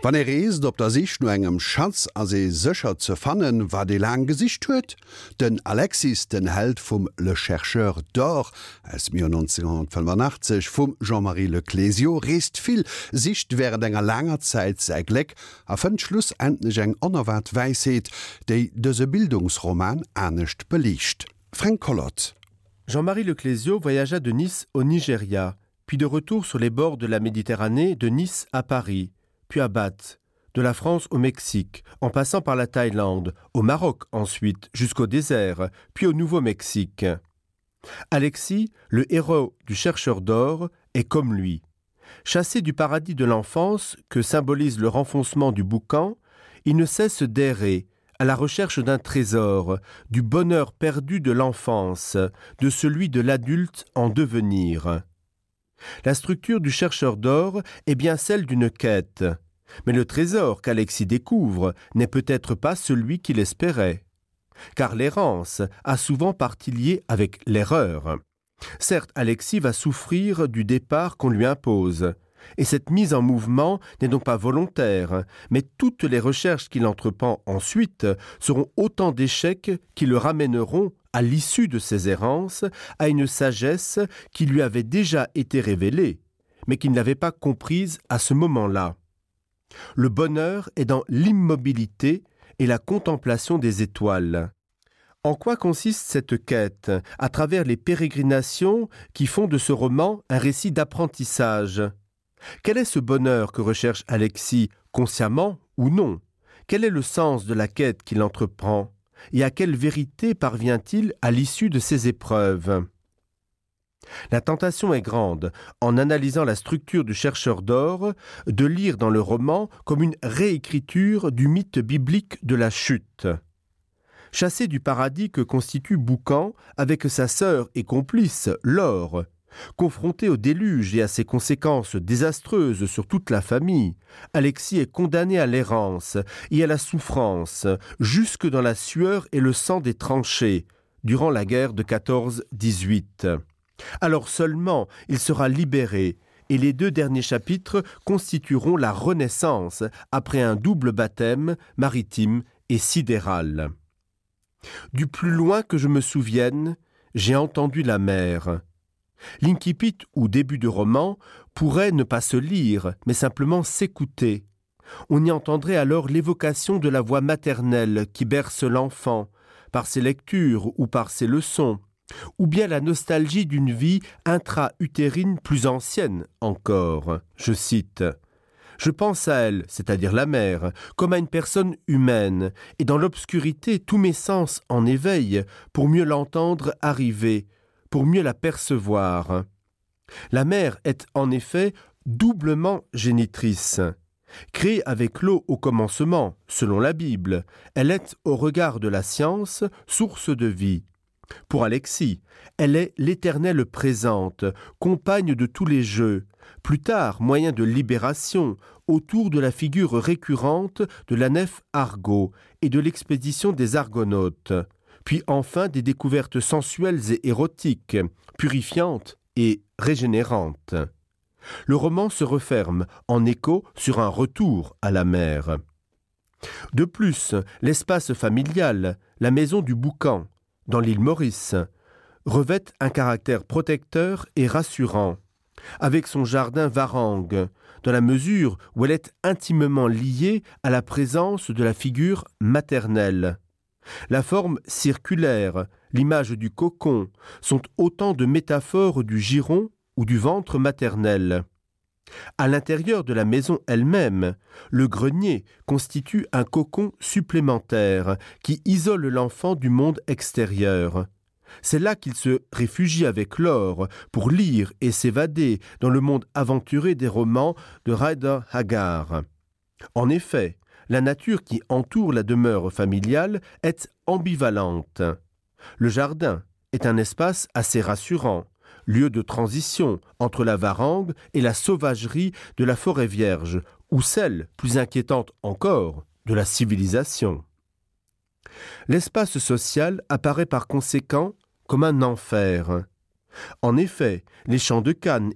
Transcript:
Wann ee reest op der Sich no engem Schatz, ass ee sécher ze fannen, wat ee laang gesicht huet. Den Alexis, den Held vum Le Chercheur d'or aus dem Joer 1985 vum Jean-Marie Le Clézio, reest vill, sicht wärend enger laanger Zäit säi Gléck a fënnt schlussendlech eng onerwaart Wäisheet, déi dëse Bildungsroman anescht beliicht. Fränk Collot. Jean-Marie Le Clézio voyagea de Nice au Nigeria, puis de retour sur les bords de la Méditerranée de Nice à Paris, puis à Bath, de la France au Mexique, en passant par la Thaïlande, au Maroc ensuite, jusqu'au désert, puis au Nouveau-Mexique. Alexis, le héros du chercheur d'or, est comme lui. Chassé du paradis de l'enfance que symbolise le renfoncement du boucan, il ne cesse d'errer à la recherche d'un trésor, du bonheur perdu de l'enfance, de celui de l'adulte en devenir. La structure du chercheur d'or est bien celle d'une quête. Mais le trésor qu'Alexis découvre n'est peut-être pas celui qu'il espérait. Car l'errance a souvent partie liée avec l'erreur. Certes, Alexis va souffrir du départ qu'on lui impose. Et cette mise en mouvement n'est donc pas volontaire, mais toutes les recherches qu'il entreprend ensuite seront autant d'échecs qui le ramèneront, à l'issue de ses errances, à une sagesse qui lui avait déjà été révélée, mais qu'il n'avait pas comprise à ce moment-là. Le bonheur est dans l'immobilité et la contemplation des étoiles. En quoi consiste cette quête à travers les pérégrinations qui font de ce roman un récit d'apprentissage? Quel est ce bonheur que recherche Alexis, consciemment ou non? Quel est le sens de la quête qu'il entreprend et à quelle vérité parvient-il à l'issue de ses épreuves? La tentation est grande, en analysant la structure du chercheur d'or, de lire dans le roman comme une réécriture du mythe biblique de la chute. Chassé du paradis que constitue Boucan avec sa sœur et complice, Laure, confronté au déluge et à ses conséquences désastreuses sur toute la famille, Alexis est condamné à l'errance et à la souffrance, jusque dans la sueur et le sang des tranchées, durant la guerre de 14-18. Alors seulement il sera libéré et les deux derniers chapitres constitueront la renaissance après un double baptême maritime et sidéral. Du plus loin que je me souvienne, j'ai entendu la mer. L'incipit ou début de roman pourrait ne pas se lire, mais simplement s'écouter. On y entendrait alors l'évocation de la voix maternelle qui berce l'enfant, par ses lectures ou par ses leçons, ou bien la nostalgie d'une vie intra-utérine plus ancienne encore. Je cite: Je pense à elle, c'est-à-dire la mère, comme à une personne humaine, et dans l'obscurité tous mes sens en éveil pour mieux l'entendre arriver, pour mieux la percevoir. La mère est en effet doublement génitrice. Créée avec l'eau au commencement, selon la Bible, elle est au regard de la science source de vie. Pour Alexis, elle est l'éternelle présente, compagne de tous les jeux, plus tard moyen de libération autour de la figure récurrente de la nef Argo et de l'expédition des Argonautes, puis enfin des découvertes sensuelles et érotiques, purifiantes et régénérantes. Le roman se referme en écho sur un retour à la mer. De plus, l'espace familial, la maison du boucan, dans l'île Maurice, revêt un caractère protecteur et rassurant, avec son jardin varangue, dans la mesure où elle est intimement liée à la présence de la figure maternelle. La forme circulaire, l'image du cocon sont autant de métaphores du giron ou du ventre maternel. À l'intérieur de la maison elle-même, le grenier constitue un cocon supplémentaire qui isole l'enfant du monde extérieur. C'est là qu'il se réfugie avec l'or pour lire et s'évader dans le monde aventuré des romans de Ryder Haggard. En effet, la nature qui entoure la demeure familiale est ambivalente. Le jardin est un espace assez rassurant, lieu de transition entre la varangue et la sauvagerie de la forêt vierge, ou celle, plus inquiétante encore, de la civilisation. L'espace social apparaît par conséquent comme un enfer. En effet, les champs de cannes.